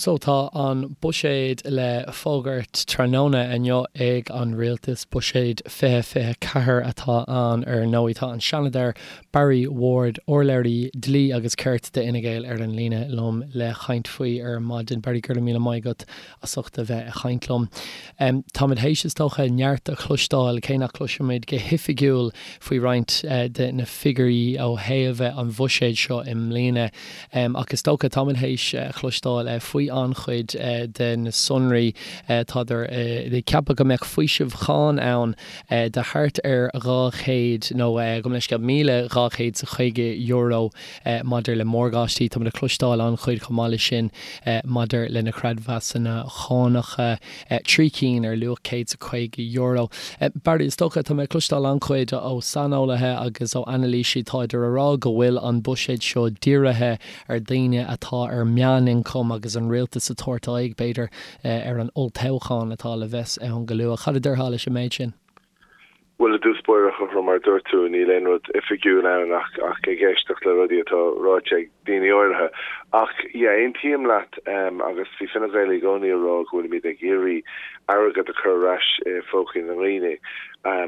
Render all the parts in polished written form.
So tá an buiséad le fógairt tráthnóna inniu ag an rialtas, buiséad 2024 atá ann ar ndóigh. Tá an Seanadóir Barry Ward, urlabhraí dlí agus cirt d'Fhine Gael ar an líne liom le chaint faoi ar maidin. Barry, go raibh míle maith agat as ucht a bheith ag chaint liom. Táimid théis, is dócha, neart a chloisteáil, cé nach gcloisimid go hoifigiúil faoi roinnt de na figiúirí ó thaobh an bhuiséid seo i mbliana. Ach is dócha, táimid théis a chloisteáil faoi an-chuid de na sonraí. Tádar ag ceapadh go mbeadh faoiseamh cháin ann de thart ar 200, nó gabh mo leithscéal, €1,250 maidir le morgáistí. Táimid ag cloisteáil an-chuid chomh maith leis sin maidir le na creidmheasanna cánacha, 3 cinn ar luach €150. Barry, is dócha, tá mé ag cloisteáil an-chuid ó saineolaithe agus ó anailísí, táidir a rá go bhfuil an buiséad seo dírithe ar daoine atá ar meánioncam agus an rialtas ag tabhairt aghaidh, b'fhéidir, ar an olltoghchán atá le bheith ann go luath. Cad a déarfá leis an méid sin? Bhuel, i dtús báire, a Chothrom, mar a dúirt tú, níl aon rud oifigiúil ann ach ach ag éisteacht le rudaí atá ráite ag daoine áirithe. Ach, yeah, aontaím leat agus bhí Fine Gael i gcónaí ag rá go bhfuilimid ag iarraidh airgead a chur ar ais i phócaí na ndaoine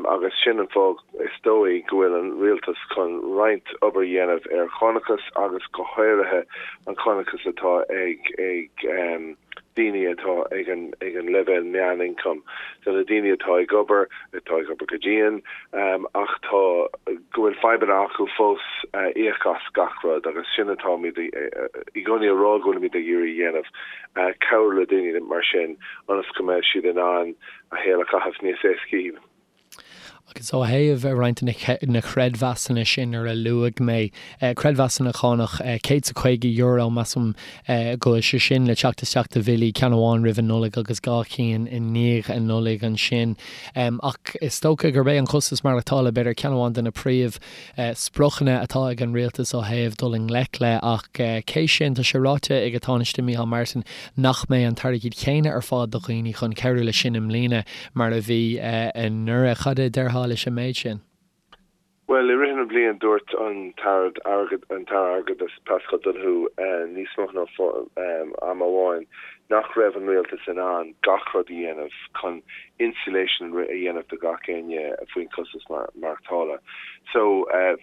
agus sin an fáth, is dóigh, go bhfuil an rialtas chun roinnt obair a dhéanamh ar chánachas agus go háirithe an cánachas atá ag ag daoine atá ag an ag an leibhéal meánioncaim, so na daoine atá ag obair, atá ag obair go dian, ach tá, go bhfuil fadhbanna acu fós íoc as gach rud agus sin atáimid i gcónaí a rá go bhfuilimid ag iarraidh a dhéanamh, cabhrú le daoine mar sin ionas go mbeidh siad in ann a shaol a chaitheamh níos éascaí. Agus ó thaobh roinnt de na creidmheasanna sin ar a luaigh mé, creidmheasanna cánach, €150, measaim go bhfuil sé sin le teacht isteach do bhillí, ceann amháin roimh an Nollaig agus 2 chinn i ndiaidh an Nollaig ansin. Ach is dócha gurb é an costas maireachtála b'fhéidir ceann amháin de na príomh spriocanna atá ag an rialtas ó thaobh dul i ngleic le, ach cé sin, tá sé ráite ag an Tánaiste Micheál Martin nach mbeidh an t-airgead chéanna ar fáil do dhaoine chun cabhrú leis sin i mbliana mar a bhí anuraidh. Cad a déarfá leis an méid sin? Bhuel, i rith na bliana dúirt an tAire Airgeadais Paschal Donohoe níos mó ná am amháin nach raibh an rialtas in ann gach rud a dhéanamh chun insulation a dhéanamh do gach éinne faoin costas maireachtála. So,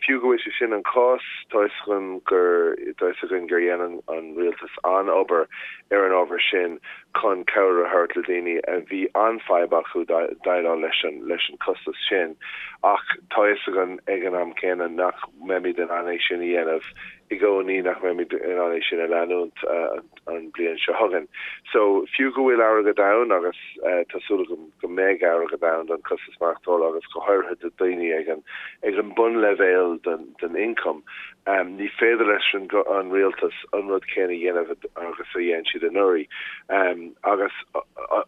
fiú go bhfuil sé sin an cás, tá fhios agam gur, tá fhios againn gur dhein an rialtas an-obair ar an ábhar sin chun cabhair a thabhairt le daoine a bhí an-fhadhb acu déileáil leis an, leis an costas sin. Ach tá fhios againn ag an am céanna nach mbeimid in ann é sin a dhéanamh i gcónaí, nach mbeimid in ann é sin a leanúint an bliain seo chugainn. So, fiú go bhfuil airgead ann, agus tá súil agam go mbeidh airgead ann don costas maireachtála agus go háirithe do daoine ag an ag an bunleibhéal den den ioncam, ní féidir leis an an rialtas an rud céanna a dhéanamh agus a dhein siad anuraidh. Agus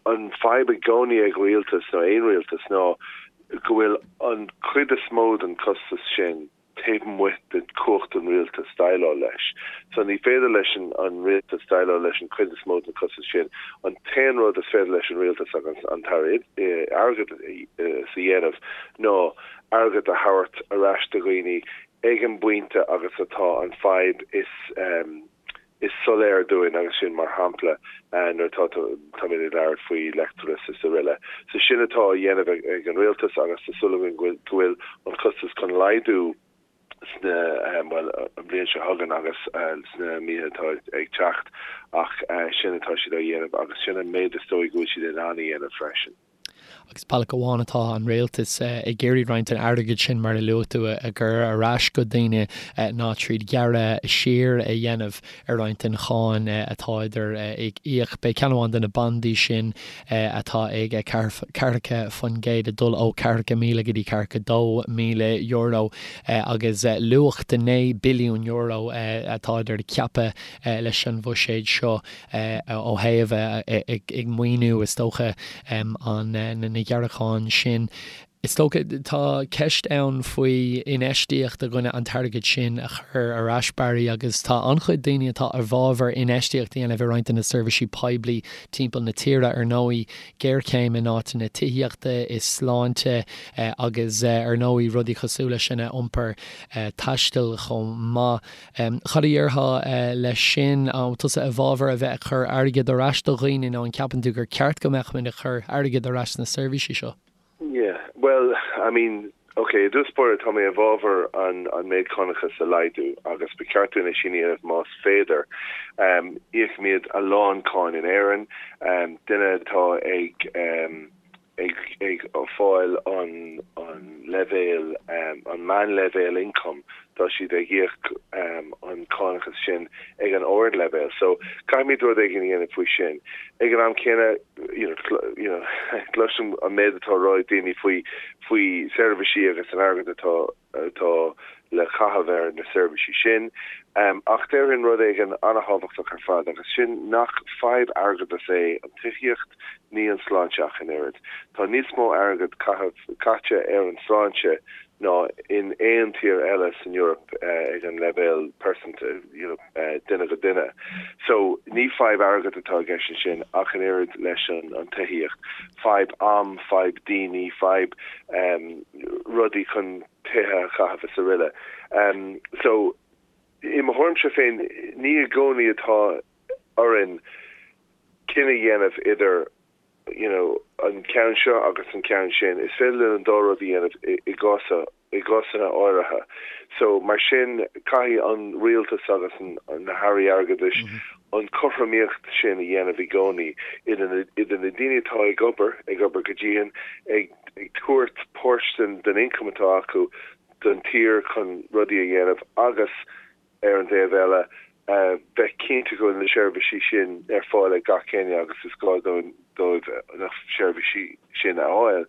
an fadhb i gcónaí ag rialtas, nó aon rialtas, ná go bhfuil an chuid is mó den costas sin, taobh amuigh de chumhacht an rialtais déileáil leis. So ní féidir leis an rialtas déileáil leis an chuid is mó den chostas sin. An t-aon rud is féidir leis an rialtas agus an tAire Airgeadais a dhéanamh ná airgead a thabhairt ar ais do dhaoine ag an bpointe agus atá an fadhb is is soiléir dúinn agus sin mar shampla nuair atá táimid ag labhairt faoi leictreachas is araile. So sin atá á dhéanamh ag an rialtas agus tá súil againn go bhfuil an costas chun laghdú sna, bhuel, an bhliain seo chugainn agus sna míonna atá ag teacht ach sin atá siad á dhéanamh agus sin an méid is dóigh go bhfuil siad in ann a dhéanamh freisin. Agus bealach amháin atá an rialtas ag iarraidh roinnt den airgead sin, mar a luaigh tú, a chur ar ais go daoine ná tríd gearradh siar a dhéanamh ar roinnt den cháin atáidir ag íoc. Beidh ceann amháin de na bandaí sin atá ag 40% ag dul ó €40,000 go dtí €42,000 agus luach de €9 billiún atáidir ag ceapadh leis an bhuiséad seo. ó thaobh ag maoiniú, is dócha, an na gearracháin sin. Is dócha, tá ceist ann faoi infheistíocht i gcoinne an t-airgead sin a chur ar ais, Barry, agus tá an-chuid daoine atá i bhfabhar infheistíocht a dhéanamh i roinnt de na seirbhísí poiblí timpeall na tíre, ar ndóigh, géarchéim in áiteanna tithíochta, i sláinte agus ar ndóigh rudaí cosúil leis sin, iompar taistil chomh maith. Cad a déarfá leis sin? An tusa i bhfabhar a bheith ag cur airgead ar ais do dhaoine nó an ceapann tú gur ceart go mbeadh muid ag cur airgead ar ais sna seirbhísí seo? Yeah, bhuel, I mean, ok, i dtús báire tá mé i bhfabhar an an méid cánachas a laghdú agus ba cheart dúinn é sin a dhéanamh más féidir. Íocaimid a lán cáin in Éirinn, duine atá ag ag ag fáil an an leibhéal an meánleibhéal income tá siad ag íoc an cánachas sin ag an ardleibhéal. So caithfimid rud éigin a dhéanamh faoi sin. Ag an am céanna you know you know cloisim an méid atá á rá ag daoine faoi faoi seirbhísí agus an airgead atá atá le caitheamh ar na seirbhísí sin. Ach déarfainn rud éigin an-thábhachtach ar fad agus sin nach fadhb airgeadais é an tithíocht ní an sláinte ach an oiread. Tá níos mó airgead caite ar an sláinte ná in aon tír eile san Eoraip ag an leibhéal pearsanta, you know, duine go duine. So ní fadhb airgead atá i gceist ansin ach an oiread leis an tithíocht. Fadhb am, fadhb daoine, fadhb rudaí chun tithe a chaitheamh is aroile. So i mo thuairimse féin ní i gcónaí atá orainn cinneadh a dhéanamh idir you know an ceann seo agus an ceann sin. Is féidir linn an dá rud a dhéanamh i gcás i gcásanna áirithe. So mar sin caithfidh an rialtas agus an na hairí airgeadais an cothromaíocht sin a dhéanamh i gcónaí idir na idir na daoine atá ag obair, ag obair go dian, ag ag tabhairt páirt den den ioncam atá acu don tír chun rudaí a dhéanamh agus ar an dtaobh eile, bheith cinnte go bhfuil na seirbhísí sin ar fáil ag gach éinne agus is gá dóibh na seirbhísí sin a fháil.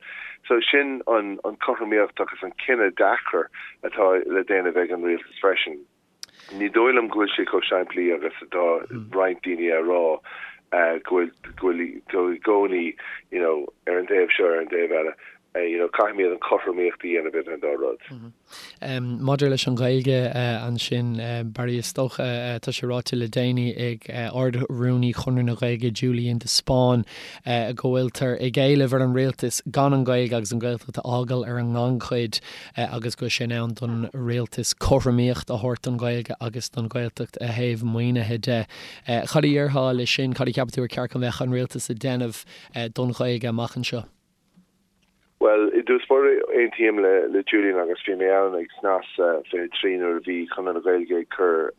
So sin an cothromaíocht agus an cinneadh deacair atá le déanamh ag an rialtas freisin. Ní dóigh liom go bhfuil sé chomh simplí agus atá roinnt daoine a rá go bhfuil go bhfuil tú i gcónaí you know ar an dtaobh seo ar an dtaobh eile. You know caithfimid an chothromaíocht a dhéanamh idir an dá rud. Maidir leis an Ghaeilge ansin, Barry, is dócha, tá sé ráite le déanaí ag Ard-Rúnaí Chonradh na Gaeilge, Julian de Spáinn, go bhfuiltear ag éileamh ar an rialtas gan an Ghaeilge agus an Ghaeltacht a fhágáil ar an ngannchuid agus go bhfuil sé in am don rialtas cothromaíocht a thabhairt don Ghaeilge agus don Ghaeltacht ó thaobh maoinithe de. Cad a déarfá leis sin? Cad a cheapann tú ar cheart go mbeadh an rialtas ag déanamh don Ghaeilge amach anseo? Bhuel, i dtús báire, aontaím le Julian agus bhí mé ann ag Snas 23 nuair a bhí Conradh na Gaeilge ag cur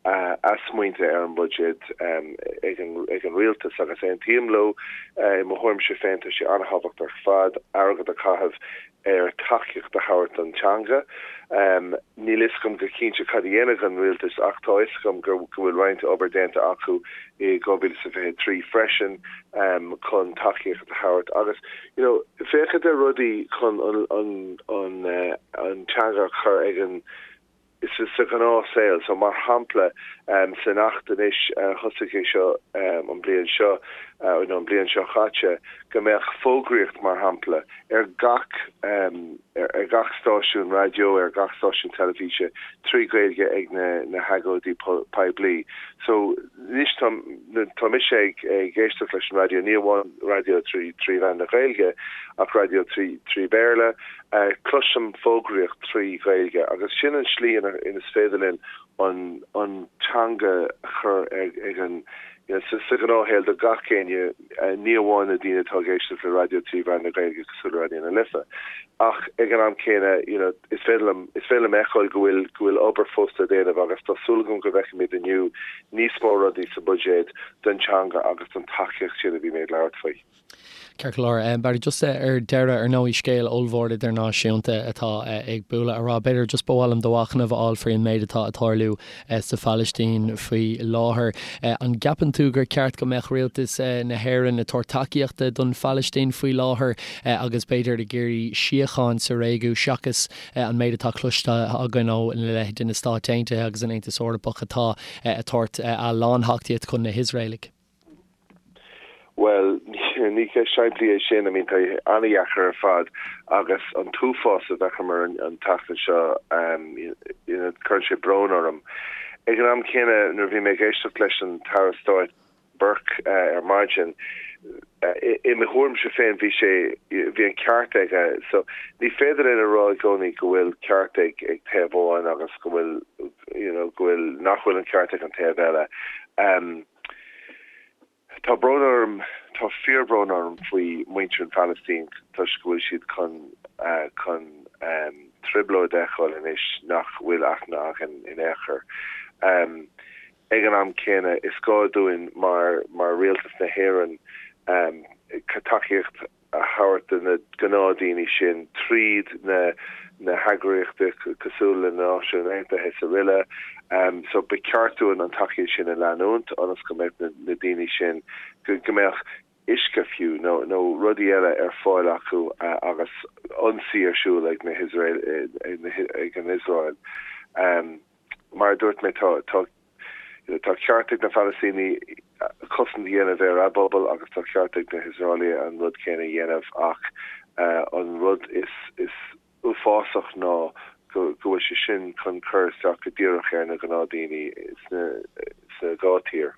a smaointe ar an mbuiséad ag an rialtas agus aontaím leo. I mo thuairimse féin tá sé an-thábhachtach ar fad airgead a chaitheamh ar tacaíocht a thabhairt don teanga. Níl fhios agam go cinnte cad a dhéanfaidh an rialtas ach tá fhios agam go bhfuil roinnt obair déanta acu i 2023 freisin chun tacaíocht a thabhairt agus you know féachaint ar rudaí chun an an an teanga a chur ag an sa ghnáthshaol. So mar shampla san Acht anois thosaigh é seo an bliain seo nó an bliain seo chaite go mbeadh fógraíocht mar shampla ar gach ar gach stáisiún raidió, ar gach stáisiún teilifíse trí Ghaeilge ag na na hagóidí poiblí. So anois tá tá mise ag ag éisteacht leis an raidió, ní amháin raidió trí trí mheán na Gaeilge ach raidió trí trí Bhéarla, Cloisim fógraíocht trí Ghaeilge agus sin an slí ina is féidir linn an an teanga a chur ag an you know sa ghnáthshaol do gach éinne, ní amháin na daoine atá ag éisteacht le raidió trí mheán na Gaeilge cosúil le Raidió na Life. Ach ag an am céanna you know is féidir liom is féidir liom fheiceáil go bhfuil go bhfuil obair fós le déanamh agus tá súil agam go bhfeicfimid inniu níos mó rudaí sa bhuiséad don teanga agus don tacaíocht sin a bhí mé ag labhairt faoi. Ceart go leor. Barry, just ar deireadh, ar ndóigh, scéal ollmhór idirnáisiúnta atá ag bualadh a rá. B'fhéidir just ba mhaith liom do mhachnamh a fháil faoi an méid atá ag tarlú sa Phalaistín faoi láthair. An gceapann tú gur ceart go mbeadh rialtas na hÉireann ag tabhairt tacaíochta don Phalaistín faoi láthair agus b'fhéidir ag iarraidh síocháin sa réigiún seachas an méid atá cloiste againn ó leithéidí na Stáit Aontaithe agus an Aontas Eorpach atá ag tabhairt a lán tacaíocht chun na hIosraelaigh? Bhuel, Ní ceist simplí é sin, I mean tá an-dheacair ar fad agus an t-uafás a d'fheiceamar an tseachtain seo, you know, cuireann sé brón orm. Ag an am céanna, nuair a bhí mé ag éisteacht leis an tAire Stáit Burke ar maidin, i mo thuairimse féin bhí sé, bhí an ceart aige. So ní féidir linn a rá i gcónaí go bhfuil ceart ag ag taobh amháin agus go bhfuil, you know, go bhfuil, nach bhfuil an ceart ag an taobh eile. Tá brón orm, tá fíorbhrón orm faoi mhuintir an Phalaistín toisc go bhfuil siad chun chun trioblóid a fheiceáil anois nach bhfuil aithne againn in aon chor. Ag an am céanna, is gá dúinn mar mar Rialtas na hÉireann tacaíocht a thabhairt do na gnáthdaoine sin tríd na na heagraíochtaí cosúil le na Náisiúin Aontaithe is araile. So ba cheart dúinn an tacaíocht sin a leanúint ionas go mbeadh na na daoine sin, go go mbeadh uisce fiú nó nó rudaí eile ar fáil acu agus ionsaí ar siúl ag na hIosrael ag an Iosrael. Mar a dúirt mé tá tá Tá ceart ag na Palaistínigh cosaint a dhéanamh ar a bpobal agus tá ceart ag na hIosraelaigh an rud céanna a dhéanamh ach an rud is uafásach ná go bhfuil sé sin chun cur isteach go díreach ar na gnáthdaoine sna dhá tír.